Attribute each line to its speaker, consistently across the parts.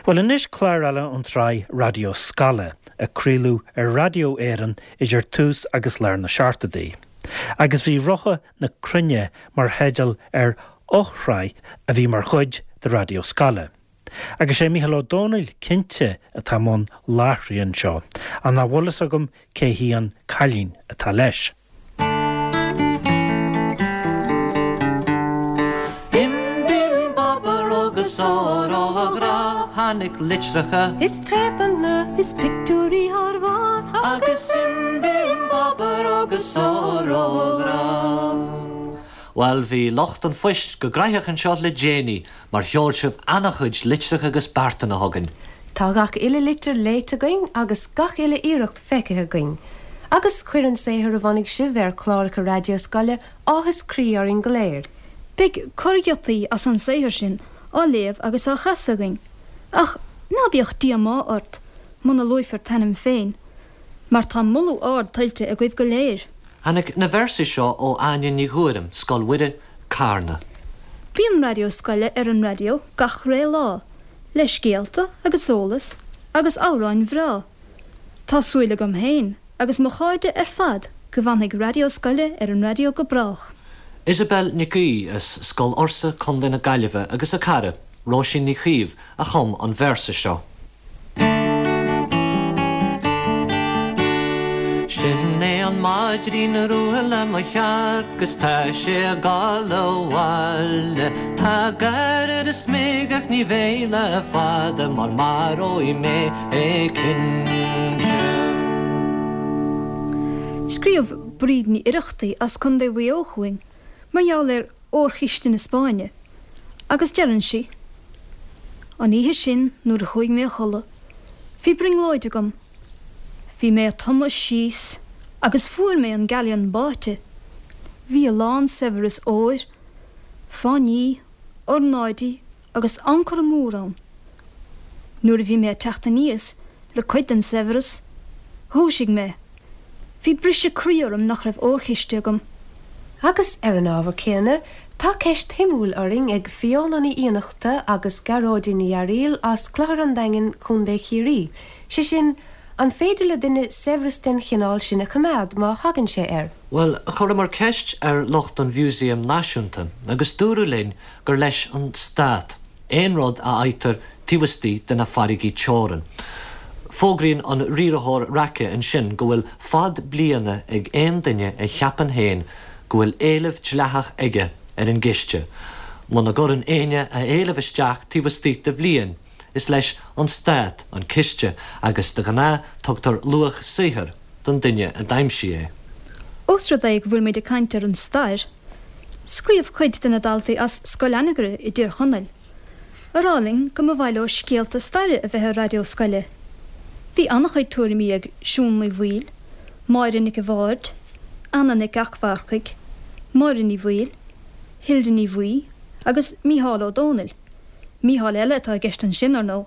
Speaker 1: Bhuel anois clár eile ón tsraith Raidió Scoile a craoladh ar Raidió Éireann idir tús agus lár na seachtóidí. Agus bhí Rotha na Cruinne mar theideal ar fhoshraith a bhí mar chuid de Raidió Scoile. Agus sé Mícheál Ó Domhnaill cinnte atá i mbun láithrithe anseo, ach nach bhfuil fhios agam cé hí an cailín atá leis.
Speaker 2: Bim bim babaró go sáró a ghrá tháinig litreacha.
Speaker 3: Is téapanna is pictiúirí thar bharr.
Speaker 2: Agus bim bim babaró go sáró a ghrá. Bhuel bhí lucht an phoist go graitheach anseo le déanaí mar sheol sibh ana-chuid litreacha agus beartanna chugainn.
Speaker 3: Tá gach uile litir léite againn agus gach uile iarracht feicthe againn. Agus chuir an saothar a bhunaigh sibh ar chláracha raidió scoile áthas croí orainn go léir.
Speaker 4: Beidh corrghiotaí as an saothar sin á léamh agus á chasadh againn, ach ná bíodh díomá ort muna luaifear t'ainm féin, mar tá moladh ard tuillte agaibh go léir.
Speaker 2: Tháinig na véarsaí seo ó Áine Ní Ghuairim, Scoil Mhuire, Carna.
Speaker 4: Bíonn Raidió Scoile ar an raidió gach ré lá, le scéalta agus eolas agus amhráin bhreá. Tá súil agam féin agus mo chairde ar fad go bhfanfaidh Raidió Scoile ar an raidió go brách.
Speaker 2: Isabel Nic Aoidh as Scoil Fhursa, Co. na Gaillimhe agus a cara, Róisín Ní Chaoimh, a chum an véarsa seo. Sin é an maidrín rua le mo shearc 'gus tá sé ag gabháil abhaile. Tá gair ar a smig ach ní bheidh le fada mar maróidh mé é cinnte.
Speaker 4: Scríobh Bríd Ní Oireachtaigh as Contae Mhaigh Eo chugainn mar gheall ar Órchiste na Spáinne, agus deireann sí, An oíche sin nuair a chuaigh mé a chodladh, bhí brionglóid agam. Bhí mé ag tumadh síos agus fuair mé an galleon báite. Bhí a lán saibhreas óir, fáinní, ornáidí agus ancora mór ann. Nuair a bhí mé ag teacht aníos le cuid den saibhreas, dhúisigh mé. Bhí briseadh croí orm nach raibh órchiste agam.
Speaker 3: Agus ar an ábhar céanna, tá ceist shuimiúil orainn ag Fiona Ní Fhiannachta agus Gearóidín Ní Fhearaíl as Clochar an Daingin, Co. Chiarraí, sé sin, an féidir le duine saibhreas den chineál sin a choimeád má thagann sé air?
Speaker 2: Bhuel, chuireamar ceist ar lucht an Mhúsaeim Náisiúnta agus dúradh linn gur leis an Stát aon rud a fhaightear taobh istigh de na farraigí teorann. Fógraíonn an riarthóir raice ansin go bhfuil fad bliana ag aon duine a cheapann féin go bhfuil éileamh dleathach aige ar an gciste. Muna gcuireann éinne a éileamh isteach taobh istigh de bhliain, is leis an Stát an ciste agus de ghnáth tugtar luach saothair don duine a d'aimsigh é.
Speaker 4: Ós rud é go bhfuil muid ag caint ar an stair, Scríobh cuid de na daltaí as Scoil Anagaire i dTír Chonaill a rá linn go mba mhaith leo scéalta staire a bheith ar raidió scoile. Bhí an-chuid tuairimí ag Siún Ní Bhaoill, Máire Nic a' Bhaird, Anna Nic Eachmharcaigh, Máire Ní Bhaoill, Hilda Ní Bhaoi agus Mícheál Ó Dónaill, Mícheál eile atá i gceist ansin, ar ndóigh.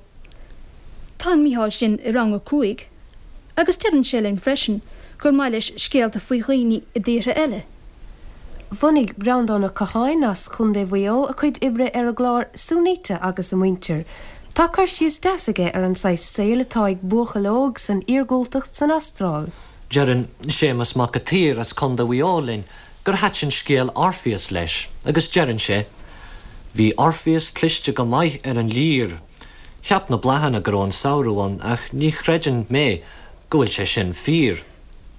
Speaker 4: Tá an Mícheál sin i rang a 5. Agus deireann sé linn freisin gur maith leis scéalta faoi dhaoine i dtíortha eile.
Speaker 3: Bhunaigh Breandán Ó Catháin as Contae Mhaigh Eo a chuid oibre ar an gclár Sunita agus a Muintir. Tá cur síos deas aige ar an saghas saoil atá ag buachaill óg san iargúltacht san Astráil.
Speaker 2: Deireann Séamus Mac a tSaoir as Contae Mhaigh Eo linn gur thaitin scéal Orpheus leis agus deireann sé, Bhí Orpheus cliste go maith ar an lir. Cheap na bláthanna go raibh an samhradh ann ach ní chreideann mé go bhfuil sé sin fíor.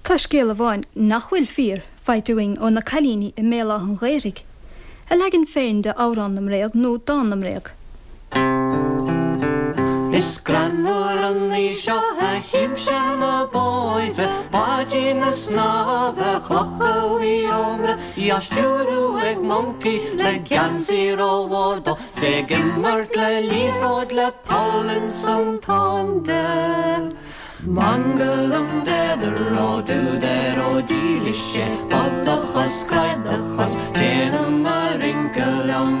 Speaker 4: Tá scéal amháin nach bhfuil fíor faighte againn ó na cailíní i mBéal Átha an Ghaorthaidh, a leagan féin de Amhrán na mBréag nó Dán na mBréag.
Speaker 2: Is greannmhar an ní seo a chímse ar na bóithre, báidín ag snámh ar chlocha Mhaigh Ómra, í á stiúradh ag moncaí le geansaí rómhór dó. 'S é ag imirt le liathróid le poll ins an tóin de. Mangalam déadar ó dúdar ó dílis sé bog do chos croith do chos téanam a rince liom.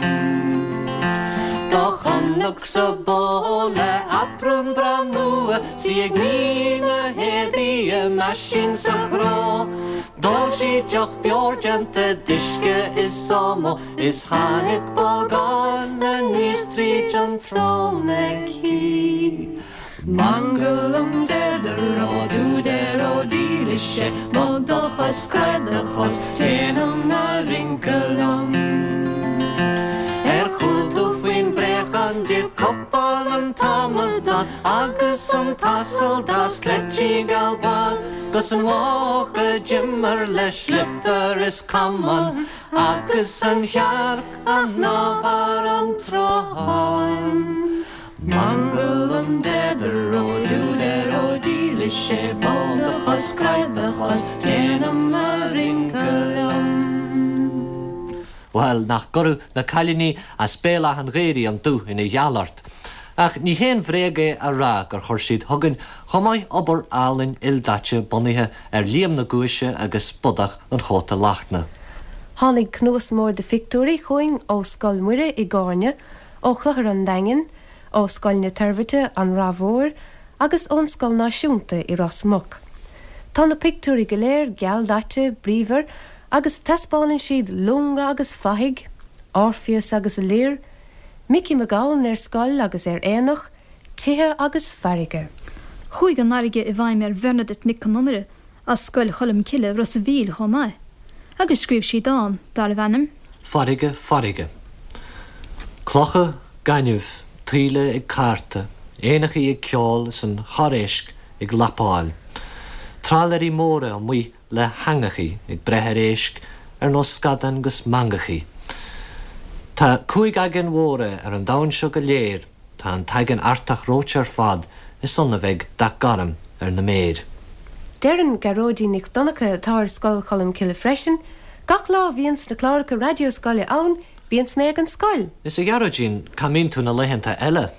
Speaker 2: Do chonacsa bó le aprún breá nua 's í ag ní na héadaí i meaisín sa chró. D'ól sí deoch beoir déanta d'uisce is ómó. Is tháinig bolgán aníos tríd an tsrón aici. Mangalam deideró dúdeiró dílis sé, bog do chos, croith do chos, déanam a rince liom. Ar chuala tú faoin bpréachán d'ith cupán an t-amadán agus an t-asal dá sleití geal bán 'gus an mhuc a d'imir le sliotar is camán agus an chearc a shnámh thar an tsruthán. Mangalam deideró dúdeiró dílis sé, bog do chos, croith do chos, déanam a rince liom.
Speaker 5: Bhuel, nach gcuirfeadh na cailíní as Béal Átha'n Ghaorthaidh an dúch ina gheal ort. Ach ní haon bhréag é a rá gur chuir siad chugainn chomh maith obair álainn ildaite bunaithe ar Liam na Guaise agus Bodach an Chóta Lachtna.
Speaker 3: Tháinig cnuas mór de phictiúirí chugainn ó Scoil Mhuire i gCárna, ó Chlochar an Daingin, ó Scoil na Toirbhirte, An Rath Mhór, agus ón Scoil Náisiúnta i Ros Muc. Tá na pictiúirí go léir gealdaite, bríomhar, agus taispeánann siad longa agus fathaigh, Orpheus agus a lir, Micí Mac Gabhann ar scoil agus ar aonach, tithe agus farraige.
Speaker 4: Chuaigh an fharraige i bhfeidhm ar Bhernadette Nic Con Iomaire as Scoil Cholm Cille, Ros a' Mhíl chomh maith, agus scríobh sí dán darbh ainm.
Speaker 5: Farraige, farraige. Clocha, gaineamh, taoille ag cártadh, éanachaí ag ceol is an chorr-éisc ag lapáil. Trálaeirí móra amuigh le heangachaí ag breith ar éisc ar nós scadán 'gus mangachaí. Tá cúig aigéan mhóra ar an domhan seo go léir, Tá an tAigéan Artach reoite ar fad, is ann a bheidh dath gorm ar na méir.
Speaker 3: Deireann Gearóidín Nic Dhonncha, atá ar Scoil Cholm Cille freisin, Gach lá a bhíonns na cláracha raidió scoile ann, bíonns mé ag an scoil!
Speaker 5: Is a Ghearóidín, cá mbíonn tú na laethanta eile?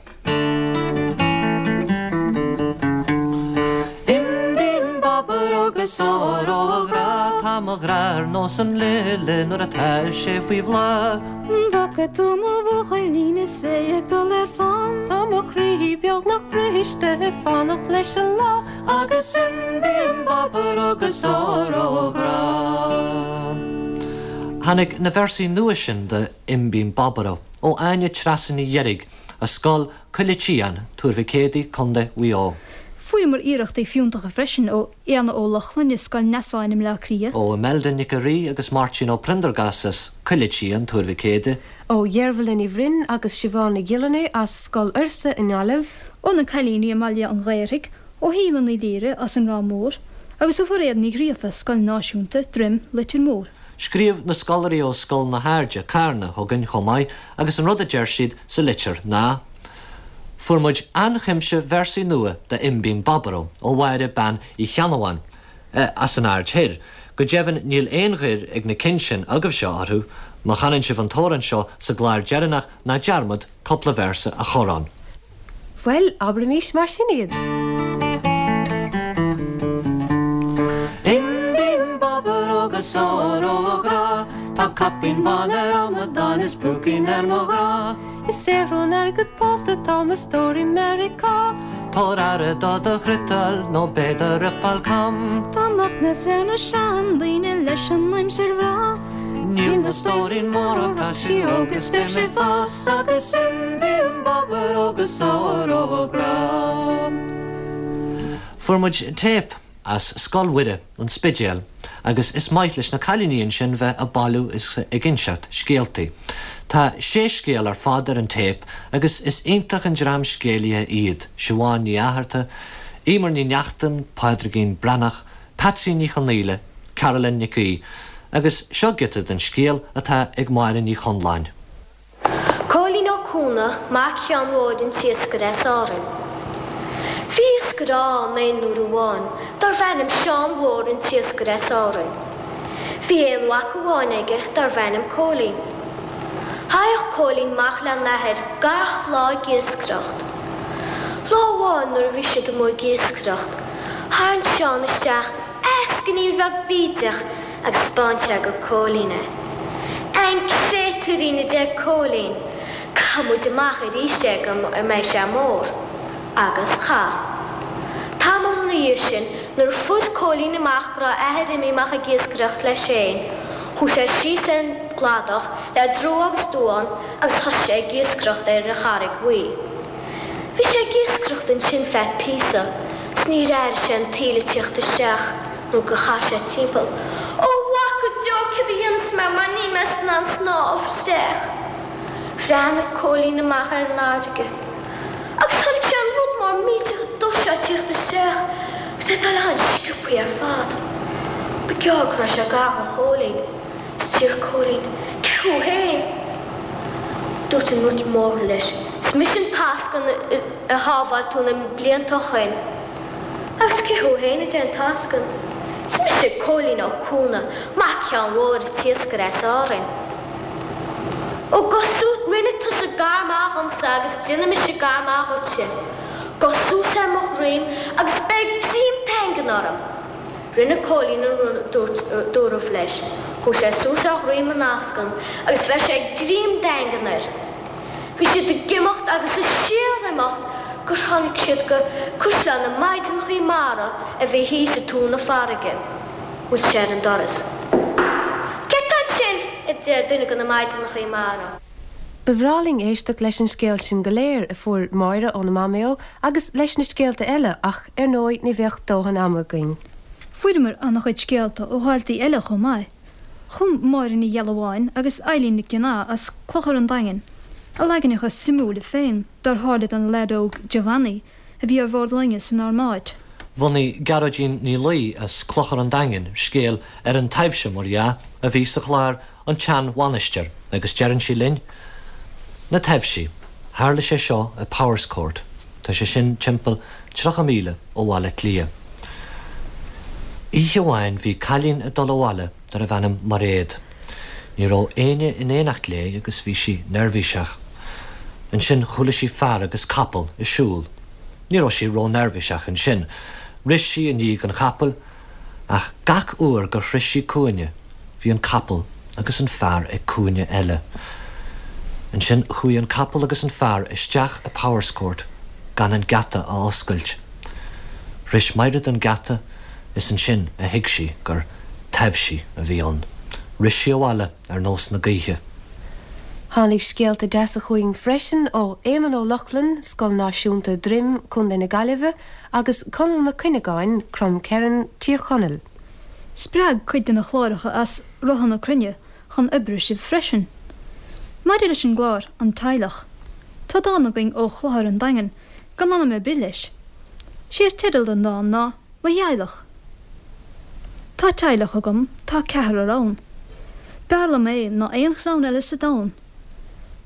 Speaker 2: Im bim babaró 'gus óró a ghrá,
Speaker 5: Tá mo ghrá ar nós an lile nuair atá sé faoi bhláth.
Speaker 4: An bhfaca tú mo bhuachaillín is é ag dul ar fán?
Speaker 3: Tá mo chroí beagnach briste ag fanacht leis an lá.
Speaker 2: Agus im bim babaró 'gus óró a ghrá.
Speaker 5: Tháinig na véarsaí nua sin de Im Bim Babaró ó Áine Treasa Ní Dheirg as Scoil Coille Tsiáin, Tuar Mhic Éadaigh, Co. Mhaigh Eo.
Speaker 4: Fuaireamar iarrachtaí fiúntacha freisin ó Éanna Ó Lochlainn i Scoil Neasáin i mBleá Cliath.
Speaker 5: Ó Imelda Nic a' Rí agus Máirtín Ó Priondargáis as Coille Tsiáin, Tuar Mhic Éadaigh.
Speaker 3: Ó Dheirbhile Ní Bhroin agus Siobhán Ní Ghiollarnáth as Scoil Fhursa i nGaillimh.
Speaker 4: Ó na cailíní i mBaile an Ghaorthaidh, ó Shíle Ní Laoire as an Ráth Mór agus ó Mhairéad Ní Ghríofa, Scoil Náisiúnta, Droim, Leitir Móir.
Speaker 5: Scríobh na scoláirí ó Scoil na hAirde, Carna, chugainn chomh maith agus an rud a deir siad sa litir ná, Fuair muid an-chuimse véarsaí nua de Im Bim Babaró ó Mháire Bean Uí Cheannabháin as an Aird Thoir. Go deimhin níl aon ghoir ag na cinn sin agaibhse orthu. Má chanann sibh an t-amhrán seo sa gclár deireanach ná dearmad cúpla véarsa a chur ann.
Speaker 3: Bhuel, abraimís mar sin iad.
Speaker 2: Im bim babaró 'gus óró a ghrá, Tá caipín bán ar amadán is púicín ar mo ghrá.
Speaker 3: Ag saothrú an airgid pósta tá mo stór i Meiriceá.
Speaker 5: Tabhair aire do do chriotal nó beidh do fhriotal cam.
Speaker 4: Tá macnas ar na seandaoine leis an aimsir bhreá.
Speaker 2: Níl mo stóirín mór ach tá sí óg is beidh sí ag fás agus im bim babaró 'gus óró a ghrá.
Speaker 5: Fuair muid téip as Scoil Mhuire, An Spidéal, agus is maith leis na cailíní ansin bheith ag bailiú is ag inseacht scéaltaí. Tá sé scéal ar fad ar an téip agus is iontach an dream scéalaithe iad, Siobhán Ní Fhátharta, Emer Ní Neachtain, Pádraigín Breathnach, Patsy Ní Chonaola, Carolyn Nic Aoidh, agus seo giota den scéal atá ag Máire Ní Chonláin.
Speaker 6: Cóilín Ó Cuana, mac Sheáin Mhóir an t-iascaire as Árainn. Bhí iascaire ann aon uair amháin darbh ainm Seán Mhór an t-iascaire as Árainn. Bhí aon mhac amháin aige darbh ainm Cóilín. Thaghadh Cóilín amach le n-athair gach lá ag iascaireacht. Lá amháin nuair a bhí siad amuigh ag iascaireacht, tharraing Seán isteach eascainín bheag bídeach agus 'spáin sé go Cóilín é. An créatúirín a deir Cóilín, caithfidh muid amach arís é go mbeidh sé mór. Agus chaith. Tamall ina dhiaidh sin, nuair a fuair Cóilín amach go raibh a athair imithe amach ag iascaireacht leis féin, chuaigh sé síos ar an gcladach le drua agus duán agus thosaigh sé ag iascaireacht ar an Charraig Bhuí. Bhí sé ag iascaireacht. imeacht ansin feadh píosa 's níor airigh sé an taoille ag tíocht isteach nó gur chas sé timpeall. Ó a mhac go deo céard a dhéanfas mé mar níl mé in ann snámh isteach. Bhreathnaigh Cóilín amach ar an fharraige agus chonaic sé an rud mór millteach dubh seo ag tíocht isteach agus é ag dul an-sciobthaí ar fad. Ba gearr go raibh sé gar do Chóilín. 'S deir Cóilín, Cé thú féin? Dúirt an rud mór leis, 'Is mise an t-eascann a shábháil tú na blianta ó shoin. Agus cé thú féin? a deir an t-eascann. 'Is mise Cóilín Ó Cuana, mac Sheáin Mhóir an t-iascaire as Árainn. Ó gabh suas, rinne tusa gar maith dhomsa agus déanfaidh mise gar maith dhuitse. Gabh suas ar mo dhroim agus beir greim daingean orm. Rinne Cóilín an rud a dúirt dúradh leis. Chuaigh sé suas ar dhroim an eascann agus bheir sé greim daingean air. Bhí siad ag imeacht agus ag síor-imeacht gur tháinig siad go Caisleán na Maighdeanachaí Mara a bhí thíos i dtóin na farraige. Bhuail sé ar an doras. Cé tá ansin? a deir duine de na Maighdeanachaí Mara.
Speaker 3: Ba bhreá linn éisteacht leis an scéal sin go léir a fuair Máire óna Maiméo agus leis na scéalta eile ach, ar ndóigh, ní bheadh dóthain ama againn.
Speaker 4: Fuaireamar an-chuid scéalta ó dhaltaí eile chomh maith. Chum Máire Ní Ghealbháin agus Eilín Nic Fhionnaith as Clochar an Daingin a leaganacha suimiúla féin dár tharla don leaid óg Giovanni a bhí ar bhord loinge san Armáid.
Speaker 5: Bhunaigh Gearóidín Ní Laoi as Clochar an Daingin scéal ar an taibhse, mar dhea, a bhí sa chlár An tSeanmhainistir agus deireann sí linn, Na taibhsí, tharla sé seo i Powerscourt, tá sé sin timpeall 30 míle ó Bhaile Átha Cliath. Oíche amháin bhí cailín ag dul abhaile darbh ainm Mairéad. Ní raibh éinne in éineacht léi agus bhí sí neirbhíseach. Ansin chuala sí fear agus capall ag siúl. Ní raibh sí ró-neirbhíseach ansin. Rith sí i ndiaidh an chapaill Ach gach uair gur shroich sí cúinne, bhí an capall agus an fear ag cúinne eile. Ansin chuaigh an capall agus an fear isteach i Powerscourt gan an geata a oscailt. Shroich Maighread an geata is ansin a thuig sí gur taibhsí a bhí ann. Rith sí abhaile ar nós na gaoithe.
Speaker 3: Tháinig scéalta deasa chugainn freisin ó Éamonn Ó Lochlainn, Scoil Náisiúnta Droim, Co. na Gaillimhe, agus Conall Mac Cuinneagáin, Crom Ceithreann, Tír Chonaill.
Speaker 4: Spreag cuid de na cláracha as Rotha na Cruinne chun oibre sibh freisin. Maidir leis an gclár An Teaghlach, tá dán againn ó Chlochar an Daingin gan ainm ar bith leis. Sé is teideal don dán ná Mo Theaghlach. Tá teaghlach agam, tá ceathrar ann. B'fhearr liom é ná aon chlann eile sa domhan.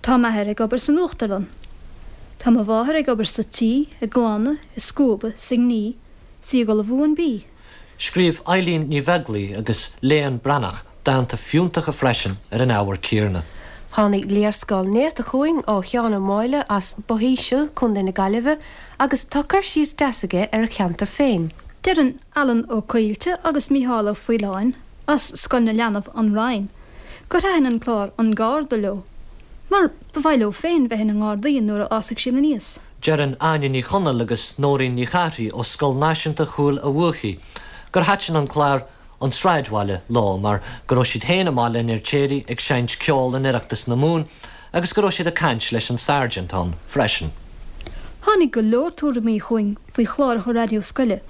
Speaker 4: Tá m'athair ag obair san uachtarlann. Tá mo mháthair ag obair sa tí, ag glanadh, ag scuabadh, 's ag ní, 's í ag ullmhú an bídh.
Speaker 5: Scríobh Eilín Ní Bheaglaoi agus Léan Breathnach dánta fiúntacha freisin ar an ábhar céanna.
Speaker 3: Tháinig léarscáil néata chugainn ó Sheán Ó Máille as Both Íseal, Co. na Gaillimhe, agus tá cur síos deas aige ar a cheantar féin.
Speaker 4: Deireann Alan Ó Coillte agus Mícheál Ó Faoláin as Scoil na Leanbh, An Rinn, gur thaitin an clár An Garda leo, mar ba mhaith leo féin bheith ina nGardaí nuair a fhásfaidh siad aníos.
Speaker 5: Deireann Áine Ní Chonaill agus Nóirín Ní Chárthaigh ó Scoil Náisiúnta Chúil a' Bhuachaigh gur thaitin an clár An Sráidbhaile leo mar go raibh siad féin i mBaile an Fheirtéaraigh ag seinnt ceoil in Oireachtas na Mumhan agus go raibh siad ag caint leis an Sergeant ann freisin.
Speaker 4: Tháinig go leor tuairimí chugainn faoi chláracha raidió scoile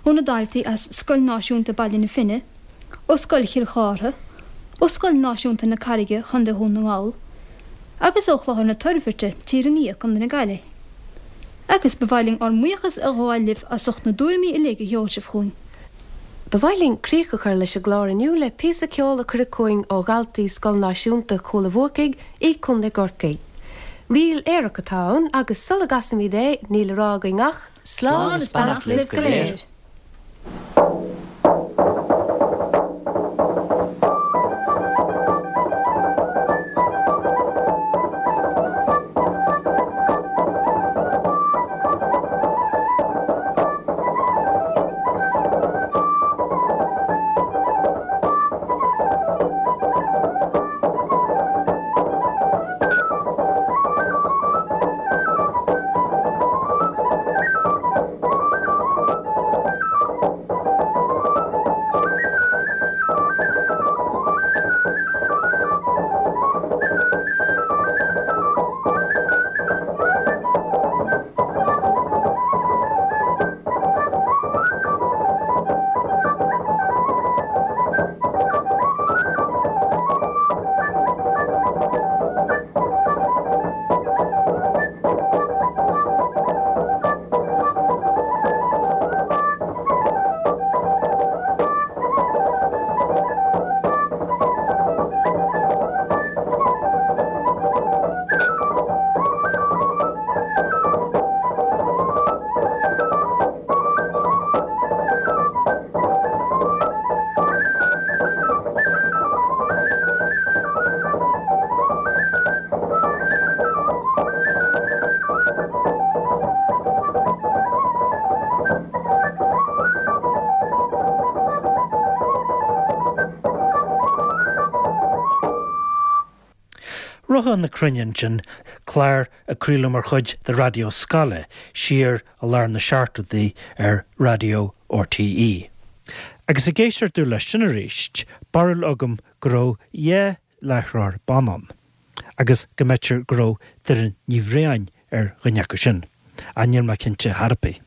Speaker 4: ó na daltaí as Scoil Náisiúnta Baile na Finne, ó Scoil Chill Chártha, ó Scoil Náisiúnta na Carraige, Chontae Dhún na nGall, agus ó Chlochar na Toirbhirte, Tír an Fhia, Contae na Gaillimhe. Agus ba mhaith linn ár mbuíochas a ghabháil libh as ucht na dtuairimí uilig a sheol sibh chugainn.
Speaker 3: Ba mhaith linn críoch a chur leis an gclár inniu le píosa ceoil a cuireadh chugainn ó dhaltaí Scoil Náisiúnta Chúil a' Bhuacaigh i gContae gCorcaí. Ríl aerach atá ann agus sula gcasaimid é níl le rá againn ach,
Speaker 5: Slán is beannacht libh go léir.
Speaker 1: Rotha na Cruinne ansin, clár a craoladh mar chuid de Raidió Scoile siar i lár na seachtóidí ar Raidió RTÉ. Agus ag éisteacht domh leis sin arís, barúil agam go raibh dhá láithreoir ban ann, agus go mb'fhéidir go raibh Doireann Ní Bhriain ar dhuine acu sin, ach níl mé cinnte thar ar bith.